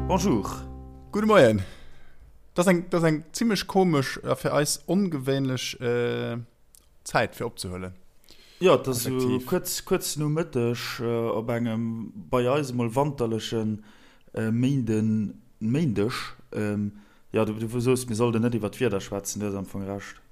Bonjour. Gudde Moien. Dat ass eng, dat ass eng zimmlech komesch a fir eis ongewéinlech Zäit fir opzehuelen. Jo, et ass esou kuerz, kuerz no Mëtteg op engem bei eis emol wanterleche Méinden, Méindeg. Jo, du, du soos, mir sollten net iwwer d'Wieder schwätzen, du hues am Fong Recht.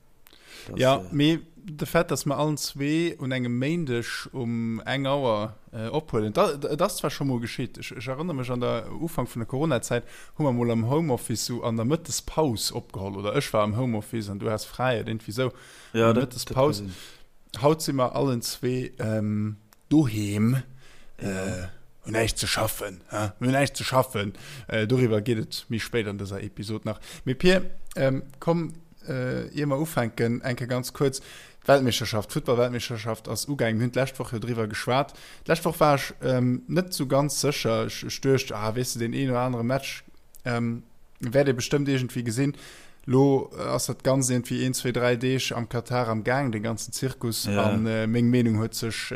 Jo, mee de Fait, dass mer allen zwee un engem Méindeg um eng Auer ophuelen, et ass zwar scho mol geschitt, ech erënnere mech an der Ufank vun der Coronazäit hu mer mol am Homeoffice sou an der Mëttespaus opgeholl, oder ech war am Homeoffice an du has fräi oder iergendwéi sou an der Mëttespaus. Haut si mer allen zwee doheem, hunn näischt ze schaffen, hä? Mir hunn näischt ze schaffen. Doriwwer geet et méi spéit an dëser Episod nach. Mee Pir, komm, ier mer ufänken, eng Kéier ganz kuerz, D'Weltmeeschterschaft, d'Futtballweltmeeschterschaft ass ugaangen. Mir hunn d'lescht Woch jo driwwer geschwat. D'lescht Woch war ech net esou ganz sécher. Ech, ech duecht, ah, weess de, deen een oder anere Match wäert ee bestëmmt iergendwéi gesinn. Lo ass dat Ganzt iergendwéi een, zwee, dräi Deeg am Katar am Gaang, dee ganzen Zirkus. Ja. An meng Meenung huet sech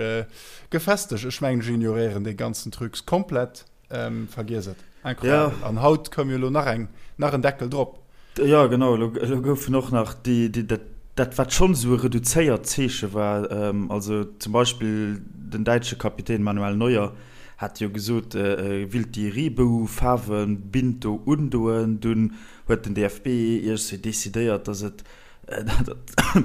gefestegt. Ech mengen, ech ignoréieren dee ganzen Trucs komplett. Vergiess et. Incroyable. Ja. An haut koum jo elo nach eng, nach en Deckel drop. Ja, genau. Elo, elo goufen och nach déi, déi, dat, dat wat schonn esou e reduzéiert Zeeche war, also zum Beispill den däitsche Kapitän Manuel Neuer hat jo gesot, e willt déi Reebou-Faarwe-Bint do undoen. Dunn huet den DFB iergendwéi decidéiert, datt et,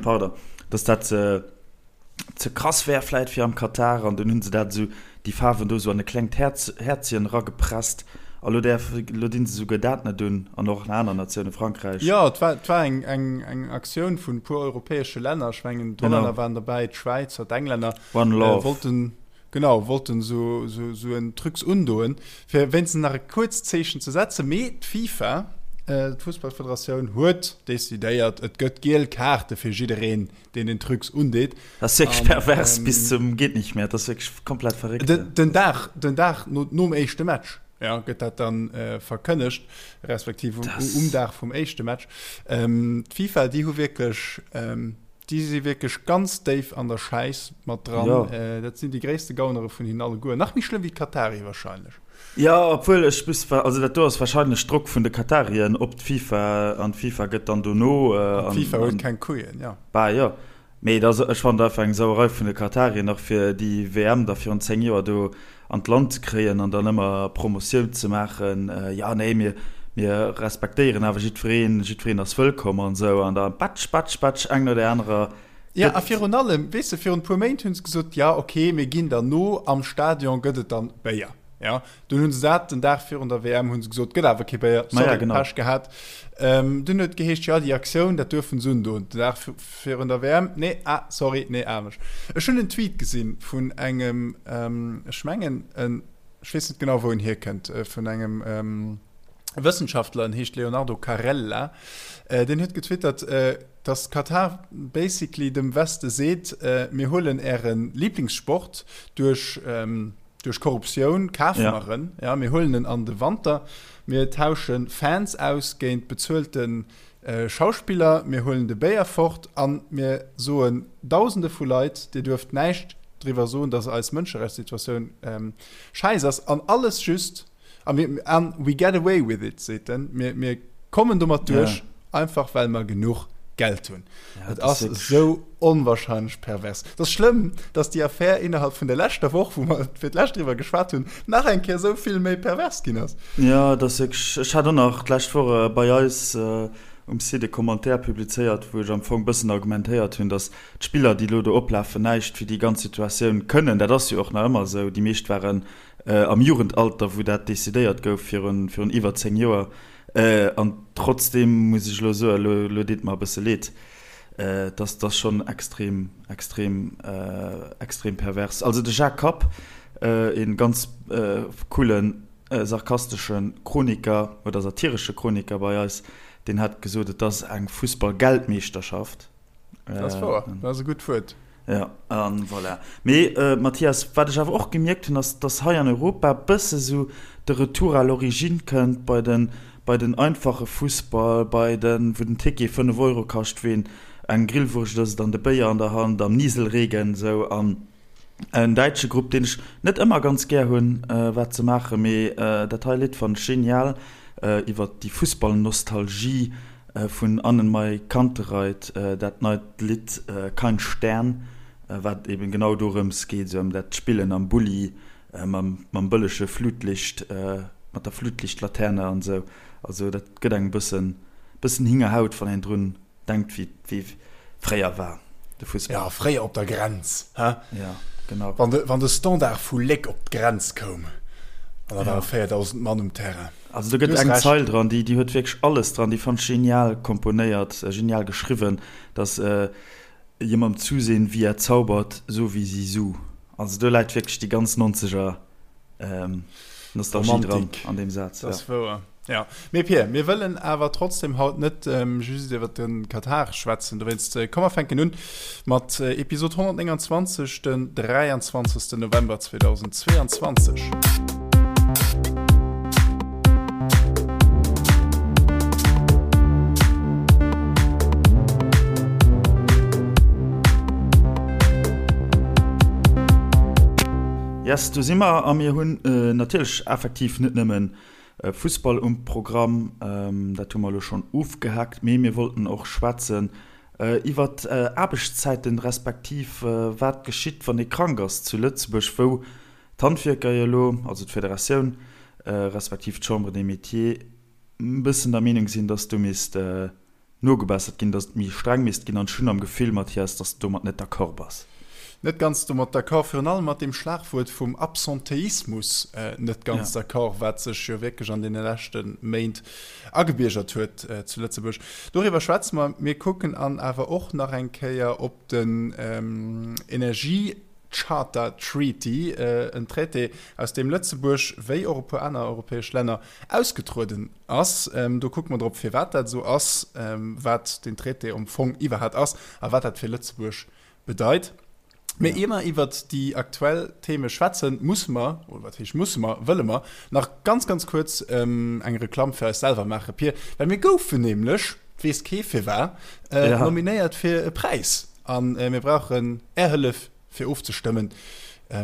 pardon, datt dat ze krass wär vläit fir am Katar an dunn hunn se dat esou, déi Faarwen do esou an e klengt Häerz, Häerzchen eragepresst a lo däerf, lo dinn se esouguer dat net un an och nach aner Natioune, Frankräich. Jo, et war, et war eng, eng, eng Aktioun vun e puer europäesche Länner, ech mengen d'Hollänner waren derbäi, d'Schwäizer, d'Englänner, One Love. wollten, genau, wollten esou, esou, esou en Trucs undoen, fir wéinstens nach e kuerzt Zeechen ze setzen. Mee d'FIFA, d'Fussballfederatioun, huet decidéiert, et gëtt giel Kaarte fir jiddereen, deen den Trucs undeet. Dat ass wierklech pervers ähm, bis zum geht nicht mehr. Dat ass wierklech komplett verréckt. Den, den Dag, den Dag no, nom éischte Match ja, gëtt dat dann äh, verkënnegt, respektiv um, um Dag vum éischte Match. Ähm, D'FIFA, déi hu wierklech ähm, déi si wierklech ganz déif an der Schäiss mat dran. Ja. Äh, dat sinn déi gréisste Gaunere vun hinnen alleguer. Nach méi schlëmm wéi d'Katari wahrscheinlech. Jo, obwuel ech muss, also dat do ass wahrscheinlech Drock vun de Katarien op d'FIFA an d'FIFA gëtt dann dono. An d'FIFA huet keng Couillen, jo. Bah jo, mee et ass, ech fannen et einfach eng Sauerei vun de Katarien nach fir déi WM da virun 10 Joer do an d'Land ze kréien an dann ëmmer Promotioun ze maachen, jo nee mir mir respektéieren awer jiddwereen, jiddwereen ass wëllkomm an esou an da batsch batsch batsch eng no där anerer. Jo, a virun allem, weess de, virun e puer Méint hu se gesot, jo ok, mir ginn der no, am Stadion gëtt et dann Béier. Ja, dunn hunn se dat den Dag virun der WM hunn se gesot, gëtt awer kee Béier, sorry, ja, genau. Pech gehat. Ähm, dunn huet geheescht, ja, déi Aktioun, dat duerfen se undoen. Den Dag virun der WM, nee, ah, sorry, nee, anescht. Ech hunn en Tweet gesinn vun engem, ähm, ech mengen, en, ech weess net genau, wou en hierkënnt, äh, vun engem ähm, Wëssenschaftler, en heescht Leonardo Carella, äh, deen huet getwittert, äh, dass Katar basically dem Weste seet, äh, mir huelen äre Lieblingssport duerch, ähm, Duerch Korruptioun kafe mer en, ja, mir huelen en an de Wanter, mir tausche Fans aus géint bezuelte Schauspiller, mir huelen de Béier fort a mir soen Dausende vu Leit, Dir duerft näischt driwwer soen, datt eis Mënscherechtssituatioun schäiss ass. An alles just, a mir, an we get away with it, seet en, mir, mir kommen domat duerch, einfach well mer genuch Geld hunn. Et ass esou onwahrscheinlech pervers. Et ass schlëmm, dass déi Affär innerhalb vun der leschter Woch, wou mer fir d'lescht driwwer geschwat hunn, nach eng Kéier esou vill méi pervers ginn ass. Jo, et ass wierklech. Ech hat och nach d'lescht Woch bei eis um Site e Commentaire publizéiert, wou ech am Fong e bëssen argumentéiert hunn, dass d'Spiller, déi elo do oplafen, näischt fir déi ganz Situatioun kënnen. Dat ass jo och nach ëmmer esou. Déi meescht waren am Jugendalter, wou dat decidéiert gouf virun iwwer 10 Joer. An trotzdem muss ech elo soen, elo, elo deet mer e bësse leed, dass dass schonn extrem, extrem, extrem pervers. Also de Jacques Kapp, e ganz coolen, sarkastesche Chroniker oder satiresche Chroniker bei eis, deen hat gesot, et ass eng Fussball-Geldmeeschterschaft. Dat ass wouer, dat ass e gutt Wuert. Jo, an voilà. Mee Mathias, wat ech awer och gemierkt hunn, ass, dass hei an Europa bësse sou de Retour à l'origine kënnt bei den, bei den einfache Fussball, bei den, wou den Ticket 5 Euro kascht, wou een eng Grillwurscht ësst an de Béier an der Hand am Nieselregen sou. An. En däitsche Grupp, deen ech net ëmmer ganz gär hunn, wat se maachen, mee dat hei Lidd fannen ech genial, iwwer déi Fussballnostalgie vun Annenmai Kantereit, dat neit Lidd Kein Stern, wat eben genau dorëms geet, esou ëm dat Spillen am Bulli mam bëllege Flutlicht, mat der Flutlichtlaterne an esou. Also dat gëtt engem bëssen bëssen Hingerhaut, wann een drun Denkt wéi wéi fréier war de Fussball. Ja, fréier op der Grenz, he? Ja, genau. Wann de, wann de Standard vu Léck op d'Grenz koum, an da ware 4.000 Mann um Terrain. Also do gëtt eng Zeil dran, déi, déi huet wierklech alles dran, déi fannt ech genial komponéiert, genial geschriwwen, dass jemandem zusehen, wie er zaubert, so wie Zizou. Also do läit wierklech déi ganz Nonzeger Nostalgie dran an deem Saz. Dat ass wouer. Ja. Mee Pir, mir wëllen awer trotzdem haut net just iwwer de Katar schwätzen. Dowéinst komm mer fänken un mat Episod 129, den 23. November 2022. Yes, do si mer a mir hunn natierlech effektiv net nëmmen Fussball um Programm, dat hu mer elo schonn ofgehaakt, mee mir wollten och schwätzen iwwert Aarbechtszäiten, respektiv wat geschitt, wann ee krank ass zu Lëtzebuerg, wou d'Handwierker jo elo, also d'Federatioun respektiv d'Chambre des Métiers, e bëssen der Meenung sinn, dass do misst nogebessert ginn, dass et méi streng misst ginn. An ech hunn am Gefill, Mathias, dass de domat net d'accord bass. Net ganz domat d'accord, virun allem mat deem Schlagwuert vum Absentéismus net ganz d'accord, wat sech jo wierklech an deene leschte Méint agebiergert huet zu Lëtzebuerg. Doriwwer schwätze mer. Mir kucken an awer och nach eng Kéier op den Energie. Charter Treaty, en Traité, aus deem Lëtzebuerg, wéi och e puer aner europäesch Länner, ausgetrueden ass. Do kucke mer drop, firwat dat esou ass, wat deen Traité am Fong iwwerhat ass a wat dat fir Lëtzebuerg bedeit. Mee ier mer iwwert déi aktuell Theme schwätzen, musse mer, oder wat heescht musse mer, wëlle mer nach ganz, ganz kuerz eng Reklamm fir eis selwer maachen, Pir, well mir goufen nämlech, weess kee firwat, nominéiert fir e Präis. A mir brauchen Är Hëllef, fir ofzestëmmen.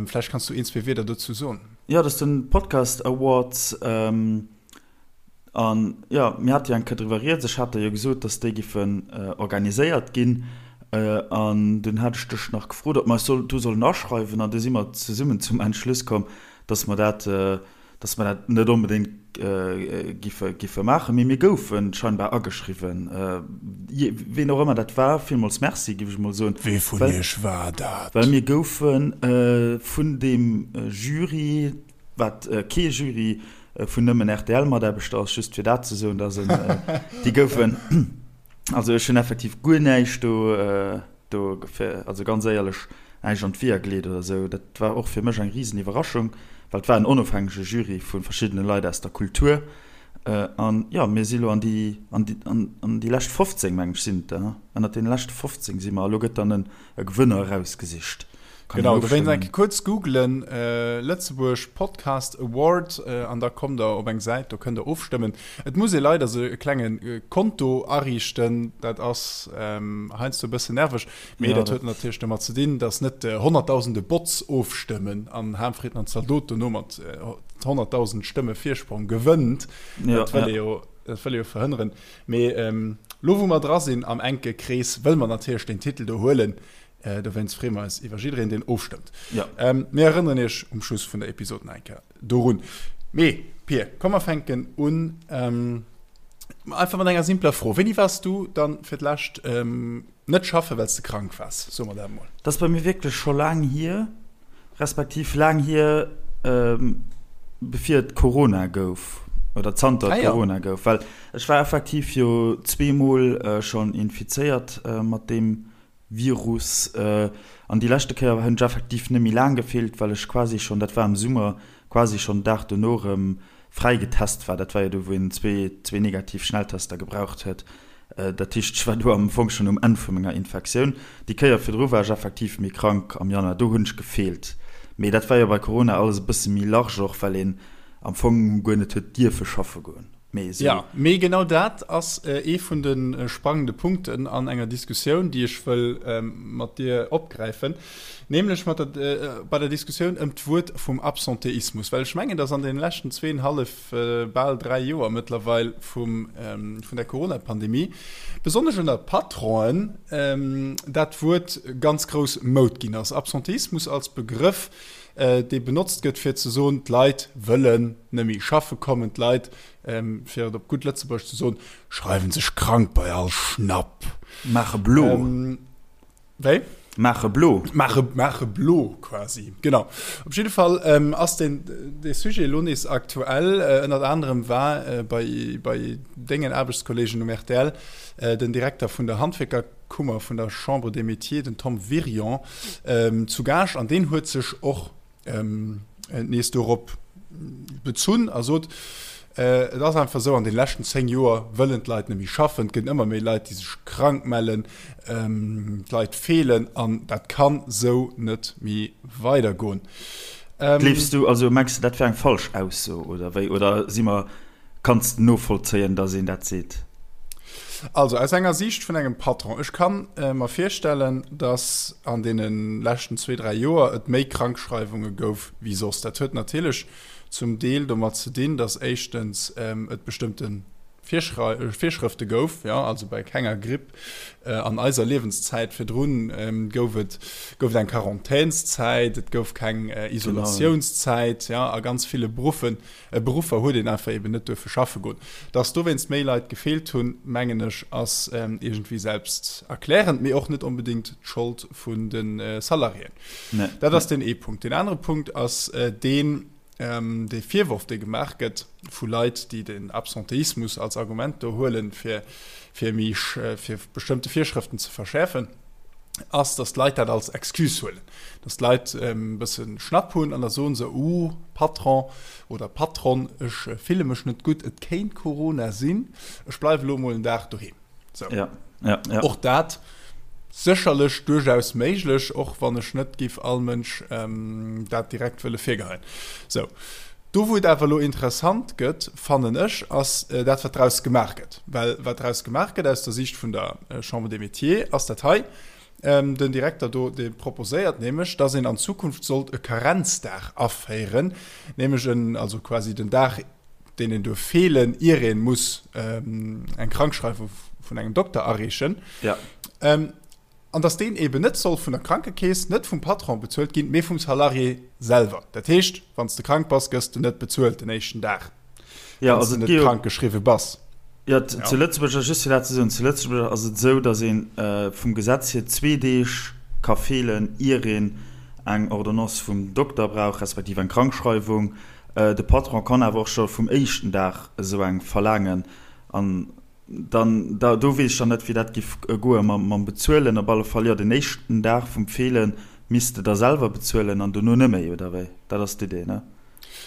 Vläicht kanns du een, zwee Wierder dozou soen. Jo, dat ass den Podcast Awards. An jo, mir hate jo eng Kéier driwwer rieds. Ech hat der jo gesot, dass déi giffen organiséiert ginn. An dunn hat ech dech nach gefrot, ob mer eis do sollen aschreiwen. An du si mer zesummen zum Entschluss komm, dass mer dat dass mer dat net onbedéngt giffe, giffe maachen, mee mir goufe scheinbar ageschriwwen. Ween och ëmmer dat war, villmools Merci, giff ech mol soen. Wee vun iech war dat? Well mir goufe vun deem Jury, wat kee Jury vun nëmmen RTL-Mataarbechter ass, just fir dat ze soen, dass en, déi goufen, also ech hunn effektiv guer näischt do, Do fir, also ganz éierlech, näischt an d'Weeër geleet oder esou. Dat war och fir mech eng risen Iwwerraschung, well et war en onofhängege Jury vu verschiddene Leit aus der Kultur. An jo, mir si lo an déi, an déi, an déi lescht 15, meng ech, sinn et der, ënnert deene leschte 15 si mer. A lo gëtt dann e Gewënner erausgesicht. Kann Genau, dowéinst eng Kéier kuerz googlen, Lëtzebuerg Podcast Award, an da kommt der op eng Säit, do kënnt der ofstëmmen. Et muss ee leider sech e klenge Konto ariichten, dat ass heiansdo e bëssen nerveg, mee dat huet natierlech domat ze dinn, datt net honnertdausende Bots ofstëmmen an Harmfrieden an Zaldot dono mat 100.000 Stëmme Virsprong gewënnt. Dat wëll ee jo, dat wëll ee jo verhënneren. Mee elo wou mer dra sinn am enke Krees, wëlle mer natierlech deen Titel do huelen. Dowéinst freeë mer eis iwwer jiddereen, deen ofstëmmt. Mir erënneren iech um Schluss vun der Episod nach eng Kéier dorun. Mee, Pir, komm mer fänken un einfach mat enger simpler Fro. Wéini waars du dann fir d'lescht net schaffen, well s de krank waars? Soe mer dat emol. Dat ass bei mir wierklech scho laang hier, respektiv laang hier, bevir et Corona gouf oder zanter et Corona gouf. Well ech war effektiv jo zweemol schonn infizéiert mat deem Virus. An déi leschte Kéier hunn ech effektiv net méi laang gefeelt, well ech quasi schonn, dat war am Summer, quasi schonn den Dag dono erëm fräi getest war. Dat war jo do, wou een zwee negativ Schnelltester gebraucht huet. Dat heescht, ech war do am Fong schonn um Enn vu menger Infektioun. Déi Kéier virdru war ech effektiv méi krank am Januar, do hunn ech gefeelt. Mee dat war jo bei Corona alles e bësse méi large och, well een am Fong guer net huet dierfe schaffe goen. Mee esou. Jo, mee genau dat ass ee vun de sprangende Punkten an enger Diskussioun, déi ech wëll mat dir opgräifen, nämlech mat der, bei der Diskussioun ëm d'Wuert vum Absentéismus. Well ech mengen, dass an deene leschten zweenhallef, bal dräi Joer mëttlerweil vum, vun der Corona-Pandemie, besonnesch ënner Patronen, dat Wuert ganz grouss Moud ginn ass. Absentéismus als Begrëff, dee benotzt gëtt, fir ze soen, d'Leit wëllen net méi schaffe kommen, d'Leit, fir et op gutt Lëtzebuergesch ze soen, schreiwen sech krank bei all Schnapp. Maache blo. Wéi? Maache blo. Maache, maache blo quasi, genau. Op jidde Fall ass deen, dee Sujet elo nees aktuell. Ënnert anerem war bei, bei dengen Aarbechtskolleegen um rtl den Direkter vun der Handwierker, Kummer vun der Chambre des Métiers, den Tom Wirion, zu Gaascht an deen huet sech och nees dorop bezunn a sot, Et ass einfach esou, an de leschten 10 Joer wëllen d'Leit net méi schaffen, et gëtt ëmmer méi Leit, déi sech krank mellen, d'Leit feelen an dat kann esou net méi weidergoen. Gleefs du, also mengs du dat wär eng falsch Ausso oder wéi, oder si mer Kanns de novollzéien, dass een dat seet? Also aus enger Siicht vun engem Patron, ech ka mer virstellen, dass an deene leschten zwee, dräi Joer et méi Krankschreiwunge gouf wéi soss. Dat huet natierlech zum Deel domat ze dinn, dass éischtens et bestëmmte Virschrëfte gouf, jo, also bei kenger Gripp an eiser Liewenszäit virdrun gouf et gouf et eng Quarantänszäit, et gouf keng Isolatiounszäit, jo, a ganz ville Beruffen Beruffer huet een einfach eben net duerfe schaffe goen. Dass dowéinst méi Leit gefeelt hunn, mengen ech, ass iergendwéi selbsterklärend, mee och net onbedéngt d'Schold vun de Salariéen. Dat ass deen ee Punkt. Deen anere Punkt ass deen, dee Virworf, dee gemaach gëtt vu Leit, déi den Absentéismus als Argument do huelen, fir fir méi fir bestëmmte Virschrëften ze verschäerfen, ass, dass d'Leit dat als Excuse huelen. Dass d'Leit e bësse Schnapp hunn an da soe se, Uh, Patron oder Patronne, ech fille mech net gutt, et kéint Corona sinn, ech bleiwe lo mol en Dag doheem. Sou. Ja, ja, ja. Och dat sécherlech duerchaus méiglech, och wann ech net giff all Mënsch dat direkt wëlle virgeheien. Sou. Do wou et awer elo interessant gëtt, fannen ech, ass dat wat draus gemaach gëtt. Well wat draus gemaach gëtt aus der Siicht vun der Chambre des Métiers ass dat hei, Den Direkter do, dee proposéiert nämlech, dass een an Zukunft sollt e Karenzdag aféieren, nämlech en, also quasi den Dag, deen een duerf feelen, ier ee muss eng Krankschreiwung vun engem Dokter areechen. Ja. An dass deen eeben net soll vun der Krankekeess, net vum Patron bezuelt ginn, mee vum Salarié selwer. Dat heescht, wann s de krank bass, gëss de net bezuelt den éischten Dag. Ja, also net krank geschriwwe bass. Ja, zu Lëtzebuerg ass just fir dat ze soen, zu Lëtzebuerg ass et esou, datt ee vum Gesetz hier zwee Deeg ka feelen, ier een eng Ordonnance vum Dokter brauch, respektiv eng Krankschreiwung. De Patron kann awer och scho vum éischten Dag esou eng verlaangen. An dann, da, do weess ech dann net, wéi dat giff goe mam Bezuelen. Op alle Fall, jo, den éischten Dag vum Feele misst de da selwer bezuelen an dono net méi, oder wéi? Dat ass d'Idee, ne?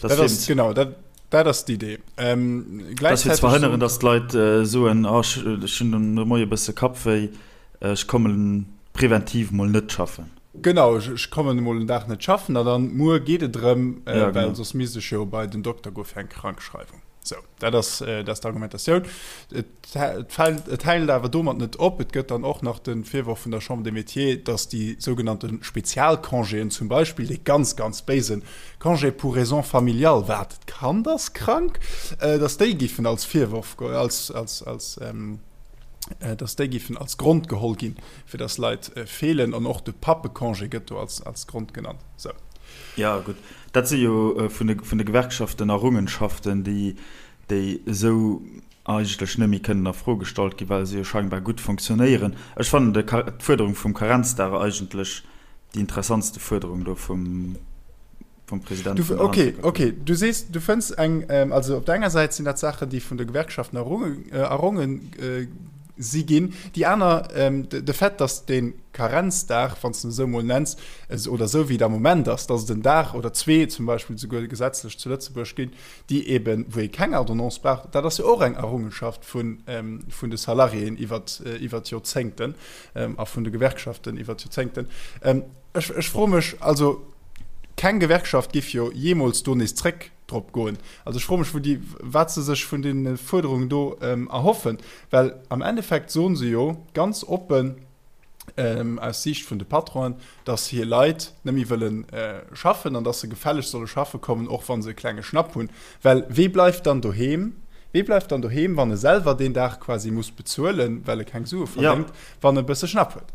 Dat ass, genau, dat, dat ass d'Idee. Ähm, dat fir ze verhënneren, datt d'Leit äh, soen, oh, ech, ech hunn de Moie bësse Kappwéi, ech kommen preventiv mol net schaffen. Genau, ech, ech kommen emol en Dag net schaffen a dann muer geet et erëm, äh, ja, well soss misst ech jo bei den Dokter goe fir eng Krankschreiwung. Sou, dat ass, äh, dat ass d'Argumentatioun. Et Et hält awer domat net op. Et gëtt dann och nach de Virworf vun der Chambre des Métiers, datt déi sougenannte Spezialcongéen, zum Beispill dee ganz, ganz béise Congé pour raisons familiales, wat, d'Kand ass krank, datt déi géifen als Virworf, als, als, als, datt déi géifen als Grond geholl ginn, fir datt Leit feelen. An och de Pappecongé gëtt do als, als Grond genannt. Sou. Jo, gutt, dat si jo vun de, vun de Gewerkschaften Errungenschaften, déi, déi esou eigentlech net méi kënnen a Fro gestallt ginn, well se jo scheinbar gutt fonctionnéieren. Ech fannen d'Fuerderung vum Karenzdag eigentlech déi interessantste Fuerderung do vum President vun der Okay, okay, du sees, du fënns eng, also op der enger Säit sinn dat Saachen, déi vun de Gewerkschaften erronge si ginn, déi aner, de Fait, datt dee Karenzdag, wann s de en esou emol nenns, oder esou wéi et am Moment ass, datt et en Dag oder zwee zum Beispill souguer gesetzlech zu Lëtzebuerg ginn, déi eben, wou ee keng Ordonnance brauch, dat ass jo och eng Errungenschaft vun, vun de Salariéen iwwer, iwwer d'Joerzéngten a vun de Gewerkschaften iwwer d'Joerzéngten. Ech, ech froe mech, also keng Gewerkschaft giff jo jeemools do nees zréck. drop goen. Also ech froe mech, wou déi, wat se sech vun deene Fuerderungen do erhoffen, well am Endeffekt soen se jo ganz oppen, aus Siicht vun de Patronen, datt hir Leit net méi wëlle schaffen an datt se gefällegst solle schaffe kommen, och wa se e klenge Schnapp hunn. Well wee bleift dann doheem? Wee bleift dann doheem, wann e selwer deen Dag quasi muss bezuelen, well e keng Sue verdéngt, wann e bësse Schnapp huet?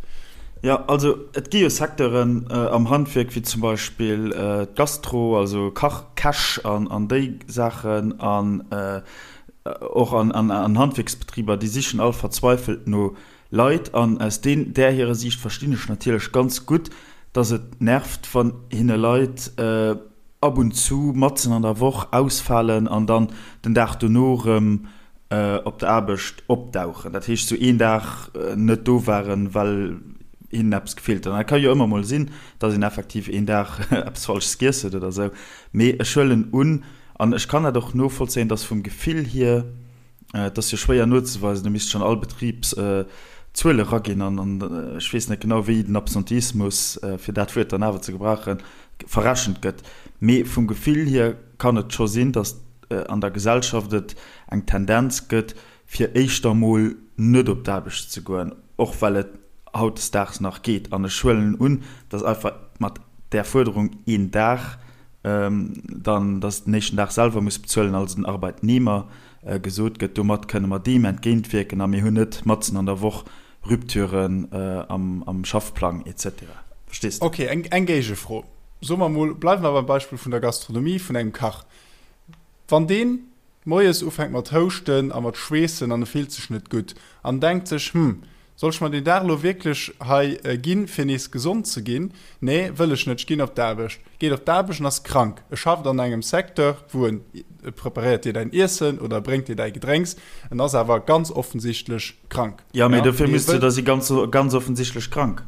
Jo, also et gi jo Secteuren am Handwierk, wéi zum Beispill d'Gastro, also Kach, Käch an déi Saachen an och an Handwierksbetriber, déi sichen all verzweifelt no Leit. An aus deen, där hirer Siicht verstinn ech natierlech ganz gutt, dass et nervt, wann hinne Leit ab und zu matzen an der Woch ausfalen an dann den Dag dono erëm op der Aarbecht opdauchen. Dat heescht, sou een Dag net do waren, well hinnen eppes gefeelt huet. An dat ka jo ëmmer mol sinn, dass een effektiv een Dag eppes Falsches giess huet oder sou. Mee ech huelen un, an ech kann dat och novollzéien, dass vum Gefill hier, Et ass jo schwéier nozeweisen, do misst schonn all Betrib Zuele raginn an ech weess net genau, wéi den Absenteismus, fir dat Wuert dann awer ze gebrauchen, verrechent gëtt. Mee vum Gefill hier kann et scho sinn, datt an der Gesellschaft et eng Tendenz gëtt, fir éischter mol net op d'Aarbecht ze goen, och well et hautdesdaags nach geet. An ech huelen un, datt einfach mat där Fuerderung een Dag dann, datt den éischten Dag selwer muss bezuelen, also den Arbeitnehmer, gesot gëtt, domat kënne mer deem entgéintwierken a mir hunn net matzen an der Woch Rupturen am Schaffplang et cetera. Verstees de? Ok, eng Géigefro. Soe mer mol, bleiwe mer beim Beispill vun der Gastronomie, vun engem Kach. Wann deen moies ufänkt mat houschten a mat schweessen an e fillt sech net gutt an denkt sech, Hm, soll ech mer deen Dag elo wierklech hei ginn, fir nees gesond ze ginn? Nee, wëll ech net, ech ginn op d'Aarbecht. Geet op d'Aarbecht an ass krank. E schafft an engem Secteur, wou en, e preparéiert dir däin Iessen oder e bréngt dir däi Gedrénks, en ass awer ganz offensichtlech krank. Jo, mee dofir misst du da si ganz, ganz offensichtlech krank.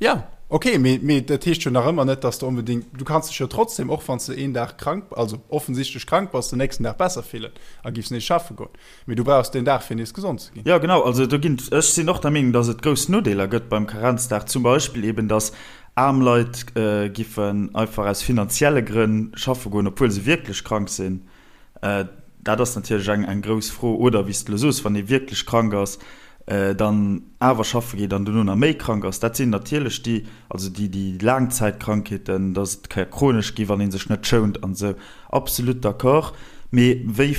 Ja, ok, mee, mee dat heescht jo nach ëmmer net, dass de onbedéngt, du kanns dech jo trotzdem, och wann s de een Dag krank, also offensichtlech krank bass, den nächsten Dag besser fillen a giffs nees schaffe goen. Mee du brauchs deen Dag, fir nees gesond ze ginn. Jo, genau. Also do ginn, ech sinn och der Meenung, dass et grouss Nodeeler gëtt beim Karenzdag, zum Beispill eben, dass aarm Leit giffen einfach aus finanzielle Grënn schaffe goen, obwuel se wierklech krank sinn. Dat ass natierlech eng, eng grouss Fro. Oder wéi s de elo soos, wann ee wierklech krank ass, dann awer schaffe geet an dono nach méi krank ass. Dat sinn natierlech déi, also déi, déi Laangzäitkrankheeten, dass et ka chronesch gi wann ee sech net schount an esou. Absolut d'accord. Mee wéi,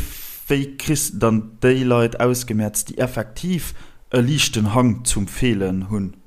wéi kriss de dann déi Leit ausgemerzt, déi effektiv e liichten Hang zum Feelen hunn?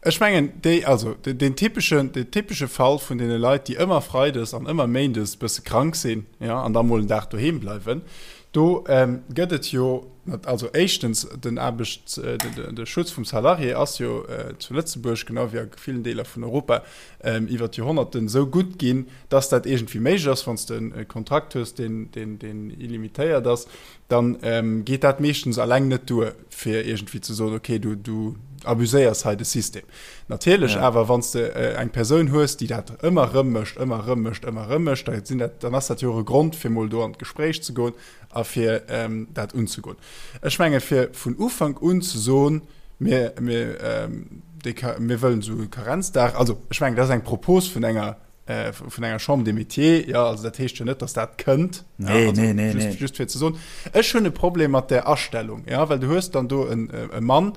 Ech mengen, déi, also deen typeschen, deen typesche Fall vun deene Leit, déi ëmmer freides an ëmmer méindes bësse krank sinn, jo, an da mol en Dag doheem bleiwen, do gëtt et jo, also éischtens, den Aarbechts-, de Schutz vum Salarié ass jo zu Lëtzebuerg, genau wéi a villen Deeler vun Europa, iwwer d'Joerhonnerten esou gutt ginn, dass dat iergendwéi méiglech ass, wann s de e Kontrakt hues, deen, deen, deen illimitéiert ass. dann geet dat meeschtens alleng net duer, fir iergendwéi ze soen, okay, du, du abuséiers hei de System. Natierlech ja. awer, wann s de äh, eng Persoun hues, déi dat ëmmer rëm mécht, ëmmer rëm mécht, ëmmer rëm mécht, da sinn dat, dann ass dat jo och e Grond, fir mol do an d'Gespréich ze goen a fir ähm, dat unzegoen. Ech menge fir vun Ufank un ze soen, mir, mir, ähm, déi, mir wëllen esou e Karenzdag, also ech mengen, dat ass eng Propos vun enger vun enger Chambre des Métiers, ja, also dat heescht jo net, dass dat kënnt. Nee, ja, also, nee, nee, just, nee. Just fir ze soen. Ech hunn e Problem mat der Astellung, ja, well du hues dann do en, e Mann,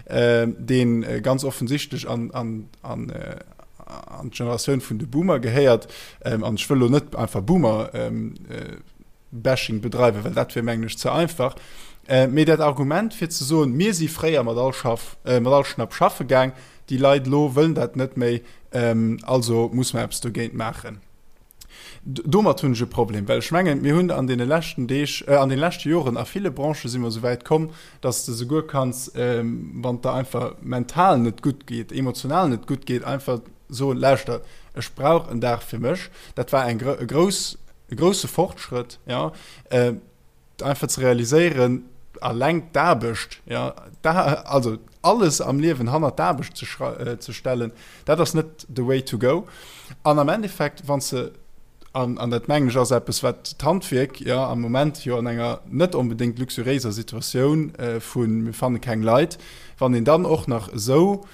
äh, deen ganz offensichtlech an, an, an, äh, an d'Generatioun vun de Boomer gehéiert, ähm, an ech wëll lo net einfach Boomer ähm, äh, Bashing bedreiwen, well dat wier mengen ech ze einfach. Äh, mee dat Argument fir ze soen, mir si fréier mat all Schaff, äh, mat all Schnapp schaffe gaang, déi Leit elo wëllen dat net méi, also muss mer eppes dogéint maachen. Domat hunn ech e Problem, well ech mengen, mir hunn an deene leschten Deeg, an deene leschte Joren a ville Branchë si mer esou wäit komm, datt s de souguer kanns, wann et der einfach mental net gutt geet, emotional net gutt geet, einfach soen, lauschter, ech brauch en Dag fir mech. Dat war eng e grouss, e grousse Fortschrëtt, jo. Einfach ze realiséieren, alleng d'Aarbecht, ja, da, also alles am Liewen hannert d'Aarbecht ze, äh, ze stellen, dat ass net the way to go. An am Endeffekt, wann se an, an dat mengen ech ass eppes, wat d'Handwierk ja am Moment jo an enger net onbedéngt luxuriéiser Situatioun äh, vun mir fanne keng Leit, wann een dann och nach esou.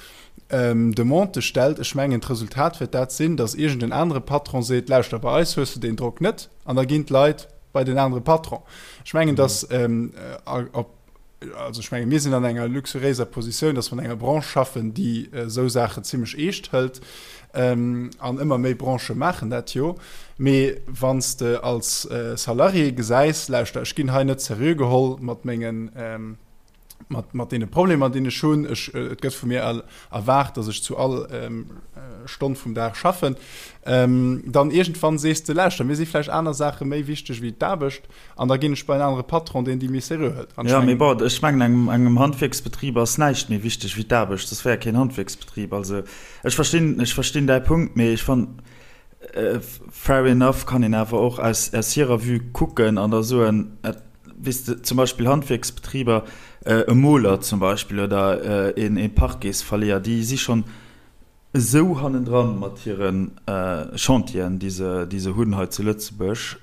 Demande stellt, ech mengen d'Resultat wäert dat sinn, datt iergend en anere Patron seet, lauschter, bei eis hues de deen Drock net, an da ginn d'Leit bei den anere Patron. Ech mengen, datt op, also ech menge mir sinn an enger luxuriéiser Positioun, datt mer an enger Branche schaffen, déi esou Saachen zimlech eescht hëlt, an ëmmer méi Branchë maachen dat jo. Mee wann s de als Salarié gesäis, lauschter, ech ginn hei net seriö geholl mat mengen, mat, mat deene Problemer, déi ech hunn. Ech, et gëtt vu mir erwaart, dass ech zu all ähm, Stonn vum Dag schaffen. Ähm, dann iergendwann sees de, lauschter, mir si vläicht aner Saache méi wichteg wéi d'Aarbecht an da ginn ech bei en anere Patron, deen déi méi seriö hëlt. An ech Ja, mee bon, ech mengen, engem, engem Handwierksbetrib ass näischt méi wichteg wéi d'Aarbecht, soss wär e keen Handwierksbetrib. Also ech verstinn, ech verstinn däi Punkt, mee ech fannen, fair enough kann een awer och aus, aus hirer Vue kucken an da soen, et, Weess de, zum Beispill Handwierksbetriber, e Moler zum Beispill oder ee Parquetsverleeër, déi si schonn esou hannendran mat hire Chantieren, déi se, déi se hunn hei zu Lëtzebuerg,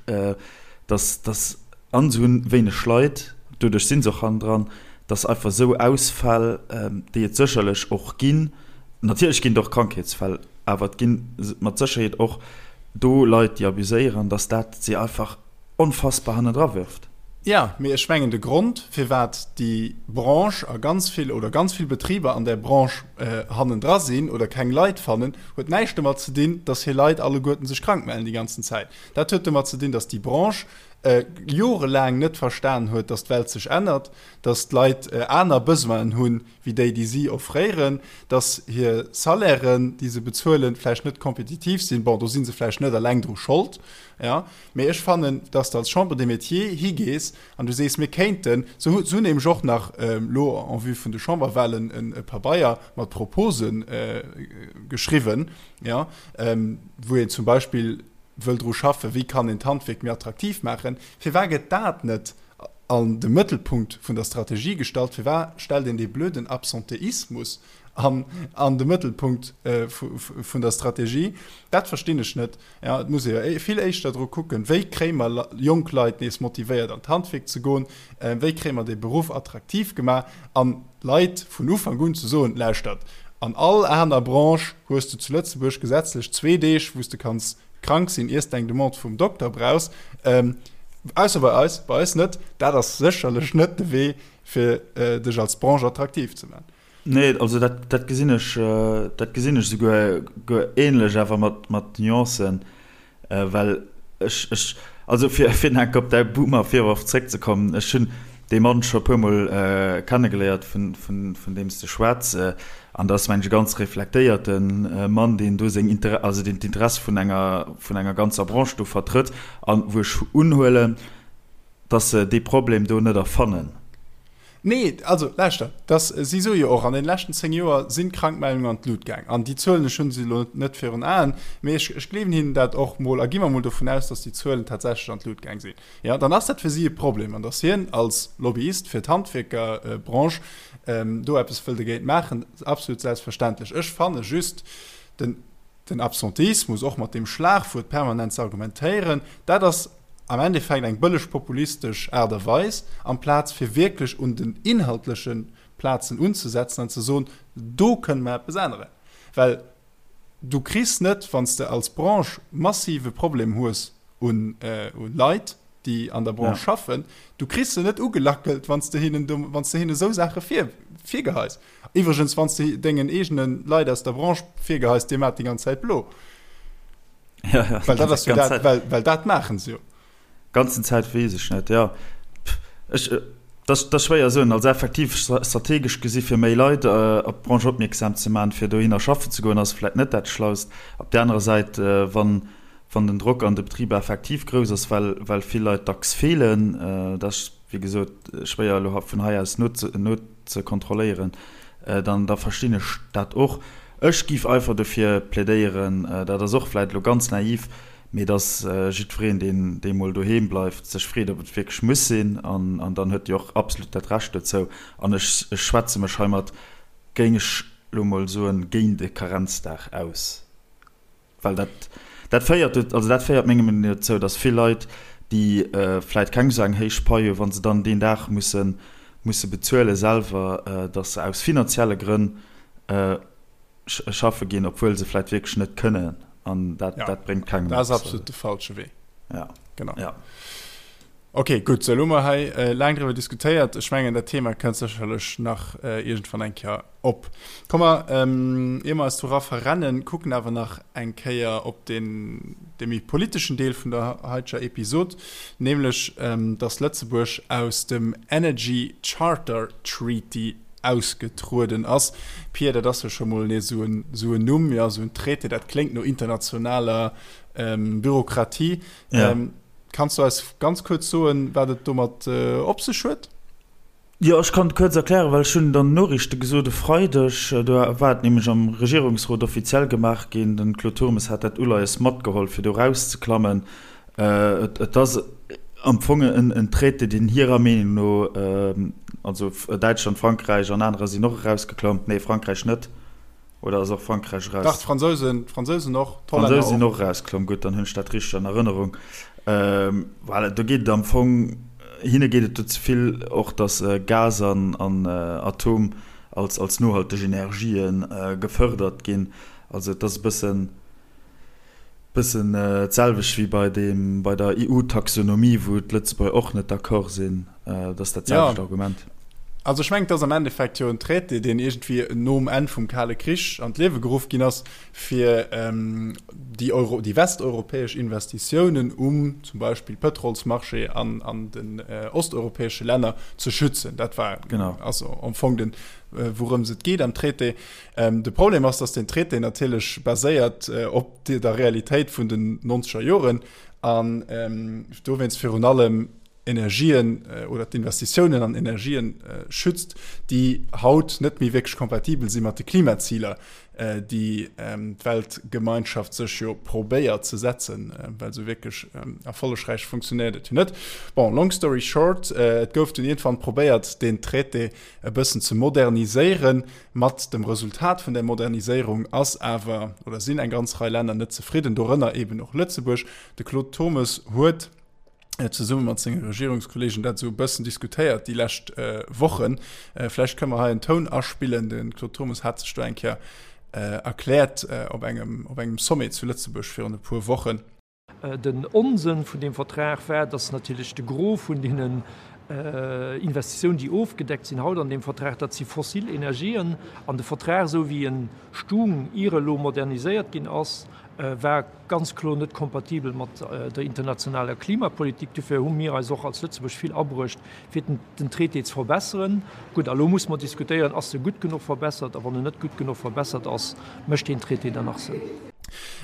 dass, dass, an se hunn wéineg Leit, doduerch si se och hannendran, dass einfach esou Ausfäll, déi et sécherlech och ginn, natierlech ginn et och Krankheetsfäll, awer et gi mat Sécherheet och do Leit, déi abuséieren, dass dat si einfach onfassbar hannendra wirft. Jo, mee ech mengen de Grond, firwat déi Branche a ganz vill oder ganz vill Betriber an där Branche hannendra sinn oder keng Leit fannen, huet näischt domat ze dinn, datt hir Leit alleguerten sech krank mellen déi ganzen Zäit. Dat huet domat ze dinn, datt déi Branche jorelaang net verstan huet, datt d'Welt sech ännert, datt d'Leit aner Besoinen hunn wéi déi, déi si offréieren, datt hir Salairen, déi se bezuelen, vläicht net kompetitiv sinn. Bon, do si se vläicht net eleng dru Schold, jo. Mee ech fannen, dass de als Chambre des Métiers higees an du sees, mir kéinten, se hunn nämlech och nach elo en vue vun de Chamberwahlen e Pabeier mat Propose geschriwwen, jo, wou een zum Beispill wëll dru schaffen, wéi kann een d'Handwierk méi attraktiv maachen. Firwat gëtt dat net an de Mëttelpunkt vun der Strategie gestallt? Firwat stellt een dee blöden Absenteismus an de Mëttelpunkt vun der Strategie? Dat verstinn ech net. Ja, et muss ee jo vill éischter dru kucken, wéi kréie mer jonk Leit nees motivéiert an d'Handwierk ze goen, wéi kréie mer dee Beruff attraktiv gemaach an d'Leit vun Ufank un ze soen, lauschtert, an all aner Branche hues de zu Lëtzebuerg gesetzlech zwee Deeg, wou s de kanns krank sinn, iers de eng Demande vum Dokter brauchs, ausser bei eis, bei eis net. Dat ass sécherlech net de Wee, fir dech als Branche attraktiv ze maachen. Nee, also dat, dat gesinn ech, dat gesinn ech souguer guer ähnlech, awer mat, mat Nuancen, well ech, ech, also fir, fir nach enk op däi Boomer-Virworf zréckzekommen, ech hunn dee Mann scho e puermol kennegeléiert, vun, vun, vun deem s de schwätz, an dat ass, mengen ech, e ganz reflektéierte Mann, deen do seng Inter-, also deen d'Interesse vun enger, vun enger ganzer Branche do vertrëtt, an wou ech unhuelen, dass se dee Problem do net erfannen. Nee, also lauschter, dass, si soe jo och, an deene leschten 10 Joer sinn d'Krankmeldungen an d'Lut gaang. An déi Zuelen, ech hu se elo net virun Aen, mee ech, ech gleewen hinnen dat och mol a gi mer mol dovun aus, dass déi Zuelen tatsächlech an d'Lut gaang sinn, jo, dann ass dat fir si e Problem. An dass hien als Lobbyist fir d'Handwierkerbranche do eppes wëll dogéint maachen, absolut selbstverständlech. Ech fanne just den, den Absenteismus och mat deem Schlagwuert permanent ze argumentéieren, dat ass, am Endeffekt eng bëlleg populistesch Aart a Weis, amplaz fir wierklech un den inhaltleche Plazen unzesetzen an ze soen, do kënne mer eppes änneren. Well du kriss net, wann s de als Branche massive Problem hues un Leit, déi an der Branche schaffen, du kriss se net ugelackelt, wann s de hinnen, wann s de hinnen esou Saache virgeheis. Iwwregens, wann s de dengen eegene Leit aus der Branche virgeheis, dir maacht déi ganz Zäit blo. Ja, ja. Well dat ass jo dat, well, well dat maachen se jo. Ganzen Zäit weess ech net, ja. Ech, dat, dat ass schwéier soen. Also effektiv strategesch gesi fir méi Leit op d'Branche opmierksam ze maachen, fir dohinner schaffen ze goen, ass vläicht net dat Schlaust. Op där anerer Säit, wann, wann den Drock an de Betriber effektiv grouss ass, well, well vill Leit dacks feelen, dat ass, wéi gesot, schwéier elo vun hei aus nozekontrolléieren, dann da verstinn ech dat och. Ech géif einfach dofir plädéieren, dat ass och vläicht elo ganz naiv, mee dass jiddwereen, deen dee mol doheem bleift, sech freet, ob et wierklech muss sinn. An dann huet Dir och absolut dat Recht dozou. An ech schwätze mech heimat, géing ech elo mol soen, géint e Karenzdag aus. Well dat, dat féiert, also dat féiert menger Meenung no dozou, datt vill Leit, déi vläit keng esou eng héich Pai hunn, wa se dann deen Dag musse, musse bezuele selwer, datt se aus finanzielle Grënn. Schaffe ginn, obwuel se vläit wierklech net kënnen an dat, ja, dat bréngt kengem Dat ass absolut de falsche Wee. Ja. Genau. Ja. Okay, gutt, sou, elo hu mer hei äh, laang driwwer diskutéiert. Ech mengen, dat Thema kënnt sécherlech nach äh, iergendwann eng Kéier op. Komm mer, ähm, ier mer eis dora verrennen, kucken awer nach eng Kéier op den, de méi politeschen Deel vun der heiteger Episod, nämlech, ähm, dass Lëtzebuerg aus dem Energy Charter Treaty ausgetrueden ass. Pia, dat ass jo scho mol nees esou en, esou en Numm, jo, esou en Traité, dat kléngt no internationaler Bürokratie. Ja. Kanns du eis ganz kuerz soen, wat et domat op sech huet? Jo, ech kann et kuerz erklären, well ech hunn et an den Noriichte gesot e Freideg. Do war et nämlech am Regierungsrot offiziell gemaach ginn. Den Claude Turmes hat dat Uleies matgeholl, fir do erauszeklammen. Et ass am Fong en Traité, deen hirer Meenung no, also Däitschland, Frankräich an anerer sinn och erausgeklomm, nee Frankräich net, oder ass och Frankräich eraus? Dach, d'Fransousen, d'Fransousen och, d'Hollänner och. D'Fransousen sinn och erausklomm, gutt, dann hunn ech dat richteg an Erënnerung. Voilà, do geet et am Fong, hinne geet et do ze vill och, datt Gas an Atom als nohalteg Energië gefërdert ginn. Also et ass e bëssen. Bëssen d'selwecht wéi bei deem, bei der EU-Taxonomie, wou d'Lëtzebuerger och net d'accord sinn. Dat ass dat selwecht Argument. Also ech mengen, et ass am Endeffekt jo en Traité, deen iergendwéi nom Enn vum Kale Krich an d'Liewe geruff ginn ass, fir déi Euro, déi westeuropäesch Investitiounen um zum Beispill Pëtrolsmarché an an den osteuropäesche Länner ze schützen. Dat war also am Fong den, wourëms et geet am Traité. De Problem ass, datt deen Traité natierlech baséiert op der Realitéit vun den nonzeger Joren an dowéinst virun allem Energien oder d'Investitiounen an Energien schützt, déi haut net méi wierklech kompatibel si mat de Klimaziler, déi d'Weltgemeinschaft sech jo probéiert ze setzen, well esou wierklech erfollegräich funktionéiert et jo net. Bon, long story short, et gouf dunn iergendwann probéiert, deen Traité e bëssen ze moderniséieren. Mat dem Resultat vun där Moderniséierung ass awer oder sinn eng ganz Rei Länner net zefridden, dorënner eeben och Lëtzebuerg. De Claude Turmes huet zesumme mat senge Regierungskollegen dat esou e bëssen diskutéiert déi lescht Wochen. Vläicht kënne mer hei en Toun aspillen. De Claude Turmes hat sech do eng Kéier erkläert op engem, op engem Sommet zu Lëtzebuerg virun e puer Wochen. Den Onsënn vun deem Vertrag war, dass natierlech de Gros vun deenen Investitiounen, déi ofgedeckt sinn haut an deem Vertrag, dat si fossil Energien. An de Vertrag, esou wéi en stung, ier e lo moderniséiert ginn ass, war ganz kloer net kompatibel mat der internationaler Klimapolitik. Dofir hu mir eis och als Lëtzebuerg vill abruecht, fir den Traité ze verbesseren. Gutt, a lo muss mer diskutéieren, Ass e gutt genuch verbessert? A wann en net gutt genuch verbessert ass, mécht deen Traité dann nach Sënn?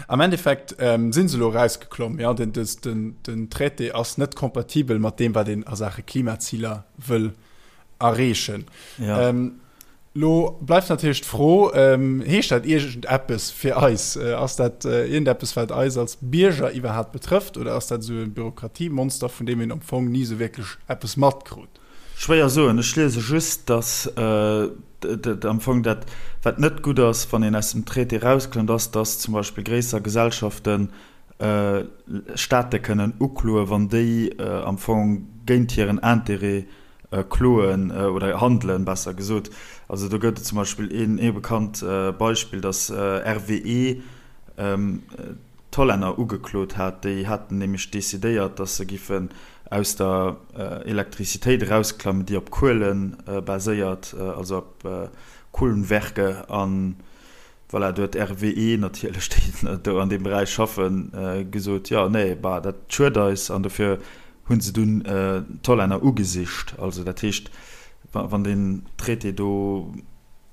Am Endeffekt si se elo erausgeklomm. Jo, den, den, den Traité ass net kompatibel mat deem, wat een a Saache Klimaziler wëll erreechen. Ja. Ähm, lo bleift natierlech d'Fro, ähm, heescht dat iergendeppes fir eis? Äh, ass dat äh, iergendeppes, wat eis als Bierger iwwerhaapt betrëfft, oder ass dat esou e Bürokratiemonster, vun deem een am Fong ni esou wierklech eppes matkrut? Schwéier soen. Ech liese just, datt am Fong dat, wat net gutt ass, wann een aus dem Traité erausklëmmt, ass, datt zum Beispill gréisser Gesellschaften Staate kënnen ukloen, wann déi am Fong géint hiren Intérêt kloen oder handelen, besser gesot. Also do gëtt et zum Beispill een ee bekannt Beispill, datt RWE d'Hollänner ugeklot hat. Déi haten nämlech decidéiert, datt se giffen aus der Elektrizitéit erausklammen, déi op Kuele baséiert, also op Kohlenwerke. An voilà, do huet RWE natierlech, déi do an deem Beräich schaffen, gesot, jo, nee, bah, dat schued eis. An dofir hu se dunn d'Hollänner ugesicht. Also dat heescht, wann deen Traité do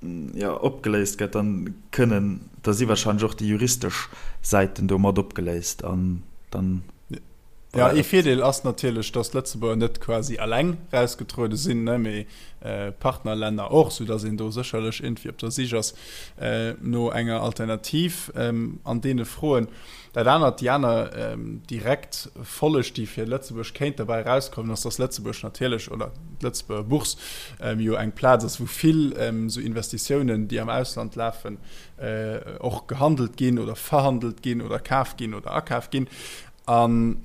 jo, opgeléist gëtt, dann kënnen, da si wahrscheinlech och déi juristesch Säiten do mat opgeléist an dann. Ja, ee Virdeel ass natierlech, datt d'Lëtzebuerger net quasi eleng rausgetruede sinn, ne, mee Partnerlänner och, soudatt een do sécherlech iergendwéi op der Sich ass no enger Alternativ an deene Froen. Dat anert, déi aner direkt Folleg, déi fir Lëtzebuerg kéint derbäi erauskommen, ass, dass Lëtzebuerg natierlech, oder d'Lëtzebuerger Bourse jo eng Plaz ass, wou vill esou Investitiounen, déi am Ausland lafen, och gehandelt ginn oder verhandelt ginn oder kaf ginn oder akaf ginn. An.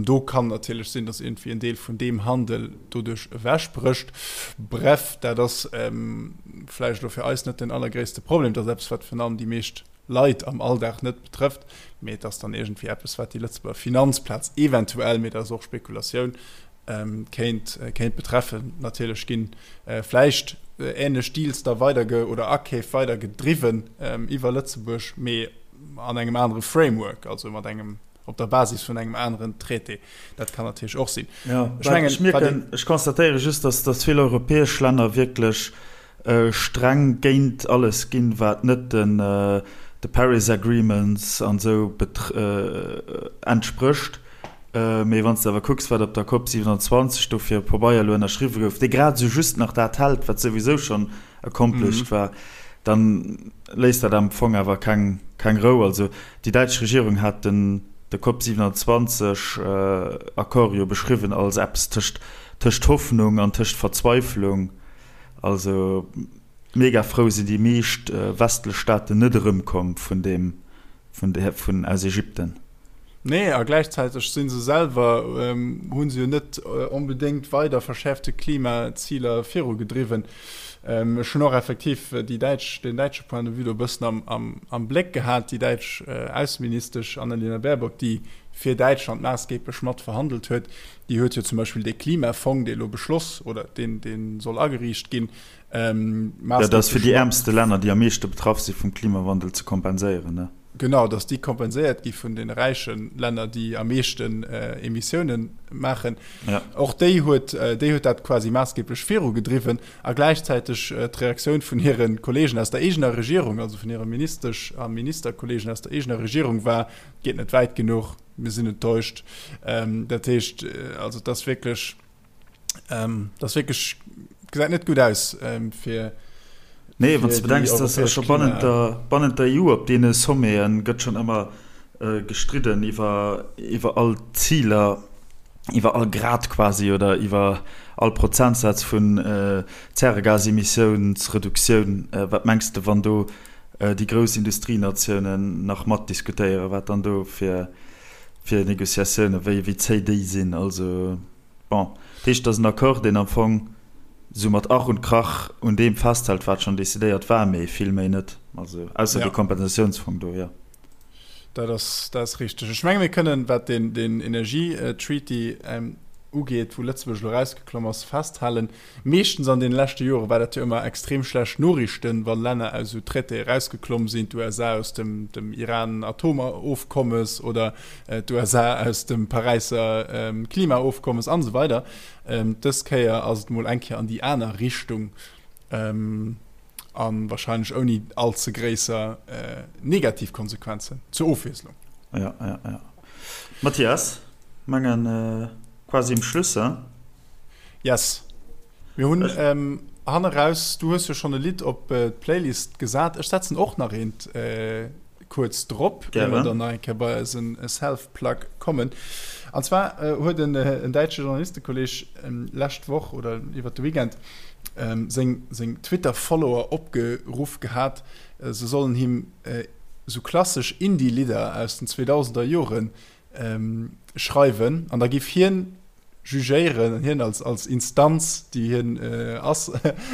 Do kann natierlech sinn, datt iergendwéi en Deel vun deem Handel doduerch ewechbrécht. Bref, dat ass vläicht elo fir eis net den allergréisste Problem. Dat ass eppes, wat virun allem déi meescht Leit am Alldag net betrëfft, mee et ass dann iergendwéi eppes, wat déi Lëtzebuerger Finanzplaz eventuell, mee dat ass och Spekulatioun, kéint, kéint betreffen. Natierlech ginn vläicht änlech Deals da weiderge oder Akeef weidergedriwwen iwwer Lëtzebuerg, mee an engem anere Framework, also mat engem, op der Basis vun engem aneren Traité. Dat kann natierlech och sinn. Jo, ech mengen, ech mierken, ech constatéiere just, dass, dass vill europäesch Länner wierklech streng géint alles ginn, wat net den, de Paris Agreements an esou entsprécht. Mee wann s de awer kucks, wat op der Cop 27 do fir e Pabeier elo ënnerschriwwe gouf, dee grad esou just nach dat hält, wat souwisou schonn accomplished war, dann léisst dat am Fong awer keng Rou. Also déi däitsch Regierung hat den de Cop 27 Accord jo beschriwwen als eppes tëscht tëscht Hoffnung an tëscht Verzweiflung. Also mega frou sinn déi meescht westlech Staaten net erëmkomm vun deem vun der vun aus Ägypten. Nee, a gläichzäiteg si se selwer, hu se jo net onbedéngt weider verschäerfte Klimaziler virugedriwwen. Ech hunn och effektiv déi däitsch, den däitsche Point de vue do e bëssen am, am, am Bléck gehat, déi däitsch Ausseministesch Annalena Baerbock, déi fir Däitschland maassgeeblech mat verhandelt huet, déi huet jo zum Beispill dee Klimafong, dee elo beschloss oder deen, dee soll ageriicht ginn, maassgeeblech. Dat ass fir déi äermste Länner, déi am meeschte betraff si vum Klimawandel, ze kompenséieren, ne? Genau, datt déi kompenséiert gi vun de räiche Länner, déi am meeschten Emissiounen maachen. Ja. Och déi huet, déi huet dat quasi maassgeeblech virugedriwwen a gläichzäiteg d'Reaktioun vun hire Kolleegen aus der eegener Regierung, also vun hire Ministesch a Ministerkolleegen aus der eegener Regierung war, Geet net wäit genuch, mir sinn enttäuscht. Dat heescht, also et ass wierklech, Ähm, das wirklich gesäit net gut aus ähm, fir Nee, wann du bedenks, dass ja scho bannent der, bannent der EU op deene Sommeten gëtt schon ëmmer äh, gestridden iwwer, iwwer all Ziler, iwwer all Grad quasi oder iwwer all Prozentsaz vun äh, Zäregasemissiounsreduktioun. Äh, wat mengs de, wann do äh, déi grouss Industrienatiounen nach matdiskutéieren, wat dann do fir, fir Negociatiounen, wéi, wéi zéi déi sinn? Also. Bon, dat heescht, et ass en Accord, deen am Fong esou mat Ach und Krach un deem festhält, wat schonn decidéiert war, mee vill méi net. Also ausser dee Kompensatiounsfong do, jo. Dat ass, dat ass richteg. Ech menge mir kënnen, wat deen, deen Energietreaty ugeet, wou Lëtzebuerg elo erausgeklomm ass, festhalen, Meeschtens an deene leschte Jore war dat jo ëmmer extrem schlecht Noriichten, wa Länner aus esou Traitéë erausgeklomm sinn, d'USA aus dem dem Iran-Atomofkommes oder d'USA aus dem Paräisser Klimaofkommes an esou weider. Dës Kéier ass et mol eng Kéier an déi aner Richtung a wahrscheinlech ouni all ze gréisser negativ Konsequenzen, zur Ofwiesslung. Jo, jo, jo. Mathias, mengen quasi um Schluss, hein? Yes. Mir hunn ähm, hanne raus, du hues jo schonn e Lidd op d'Playlist gesat. Ech setzen och nach eent äh, kuerz drop, ier mer dann nach eng Kéier bei eisen Self-Plug kommen. An zwar äh, huet en, äh, en däitsche Journalistekolleg ähm, lescht Woch oder iwwer de Weekend ähm, seng, seng Twitter-Follower opgeruff gehat, äh, se sollen him äh, sou klassesch Indie-Lidder aus den 2000er Joren ähm, schreiwen an da giff hien jugéieren, hien als, als Instanz, déi hien äh, ass,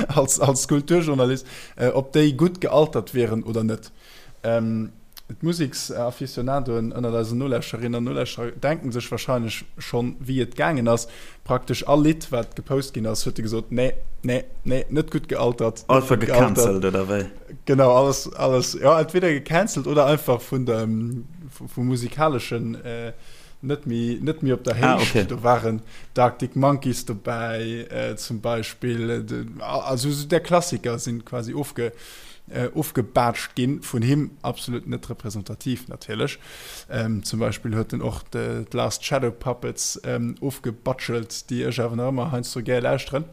als, als Kulturjournalist, äh, ob déi gutt gealtert wieren oder net. Ähm, D'Museksaficionadoen ënnert eisen Nolauschterinnen an Nolauschterer denken sech wahrscheinlech schonn, wéi et gaangen ass. Praktesch all Lidd, wat gepost ginn ass, huet e gesot, nee, nee, nee, net gutt gealtert. Einfach gecancelt, oder wéi? Genau, alles, alles, ja, entweder gecancelt oder einfach vun dem, vum musikaleschen äh, net méi net méi op der Héicht. Ah, okay. Do waren d'Arctic Monkeys dobäi äh, zum Beispill. De, also so der Klassiker sinn quasi ofge, äh, ofgebaatscht ginn vun him, absolut net representativ natierlech. Ähm, zum Beispill huet en och de, d'Last Shadow Puppets ähm, ofgebatschelt, déi ech awer nach ëmmer heiansdo gär lauschteren.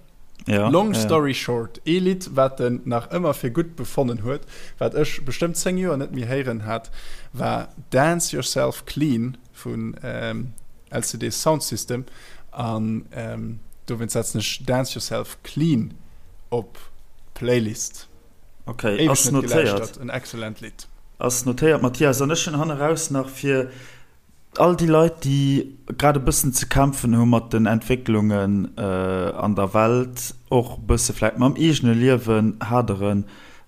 Ja, Long story ja. short, ee Lidd, wat en nach ëmmer fir gutt befonnen huet, wat ech bestëmmt 10 Joer net méi héieren hat, war Dance Yourself Clean vun ähm, LCD Soundsystem. An ähm, dowéinst setzen ech Dance Yourself Clean op d'Playlist. Okay, ass notéiert. En excellent Lidd. Ass notéiert, Mathias. An ech hunn hanneraus nach fir. All déi Leit, déi grad e bëssen ze kämpfen hu mat den Entwécklungen an der Welt, och e bësse vläicht mam eegene Liewen haderen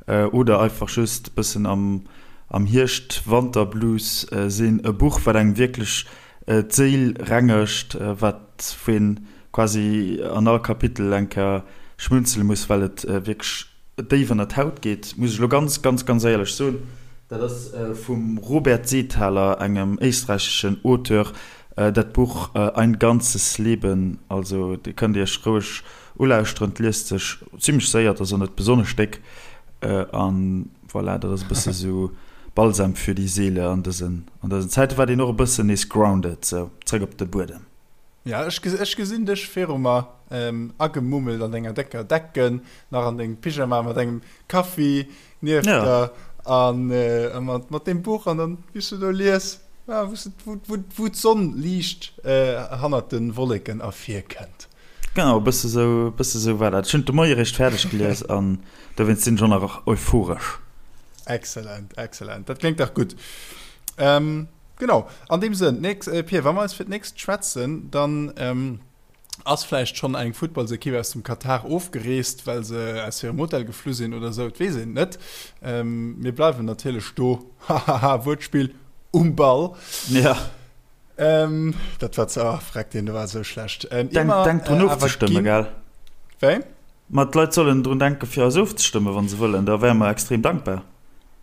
oder einfach just e bëssen am Hierscht-Wanter-Blues sinn, e Buch, wat engem wierklech d'Séil rengegt, wat wou een quasi an all Kapitel eng Kéier schmunzele muss, well et wierklech déif ënner d'Haut geet, muss ech elo ganz, ganz, ganz éierlech soen. Dat ass vum Robert Seethaler, engem éisträicheschen Auteur, dat Buch Ein ganzes Leben. Also Dir kënnt Iech roueg ulauschteren, et liest sech zimmlech séier, et ass och net besonnesch déck. An voilà, dat ass e bësse sou Balsam für die Seele an dësen, an dësen Zäiten, wat een och e bëssen nees grounded, sou zréck op de Buedem. Ja, ech, ech gesinn dech viru mer, agemummelt an denger décker Decken, nach an dengem Pyjama mat engem Kaffi nieft ja. der an äh, mat, mat dem Buch an dann wéi s du do lies, ja, wou, wou, wou, wou d'Sonn liicht äh, hannert de Wolleken ervirkënnt. Genau, e bësse sou, e bësse sou war dat. Ech hunn de Moie réischt fäerdeg gelies an dowéinst sinn ech och nach euphoresch. Excellent, excellent. Dat kléngt dach gutt. Ähm, Genau, an deem Sënn, nächst, äh, Pir, wa mer eis fir d'nächst schwätzen, dann ähm, ass vläicht schonn eng Futtballsekipp aus dem Katar ofgereest, well se aus hirem Hotel geflu sinn oder esou, et weess een et net. Ähm, mir bleiwen natierlech do, hahaha, Wuertspill, um Ball. Ja. Ähm, dat war ze, oh, freck, deen do war esou schlecht. Ähm, Denk, immer, denk drun äh, awer ofzestëmme, ginn. gell? Wéi? Ma d'Leit sollen drun denken, fir eis ofzestëmmen, wa se wëllen, da wäre mer extrem dankbar.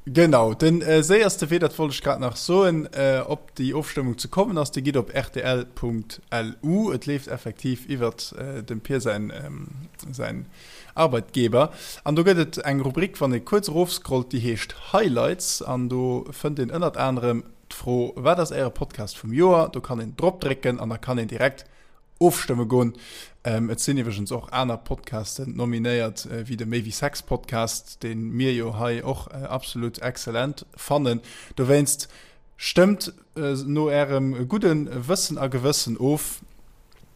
Genau, de séierste Wee, dat wollt ech grad nach soen, op déi Ofstëmmung ze kommen ass, Dir gitt op rtl.lu. Et leeft effektiv iwwert dem Pir säin, säin Arbeitgeber. An do gëtt et eng Rubrik, wann ee kuerz erofscrollt, déi heescht Highlights. An do fënnt een ënnert anerem d'Fro, Wat ass Äre Podcast vum Joer? Do kann een drop drécken an da kann een direkt Ofstëmme goen. Et sinn iwwregens och aner Podcasten nominéiert, wéi de Méi wéi Sex Podcast, dee mir jo hei och absolut excellent fannen. Dowéinst stëmmt no ärem gudde Wëssen a Gewëssen of.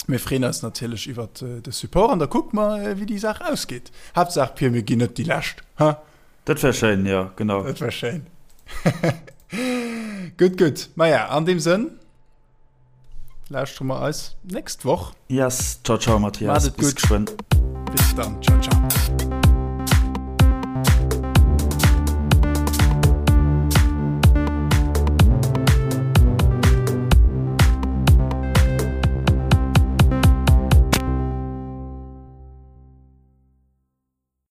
Mir freeën eis natierlech iwwert de Support an da kucke mer, wéi déi Saach ausgeet. Haaptsaach, Pir, mir ginn net déi Lescht, he? Dat wär schéin, jo, genau. Dat wär schéin. Gutt, gutt. Maja, an deem Sënn. Lauschtere mer eis nächst Woch. Yes, ciao ciao Matthias. Maat et gutt. Bis geschwënn. Bis dann, ciao ciao.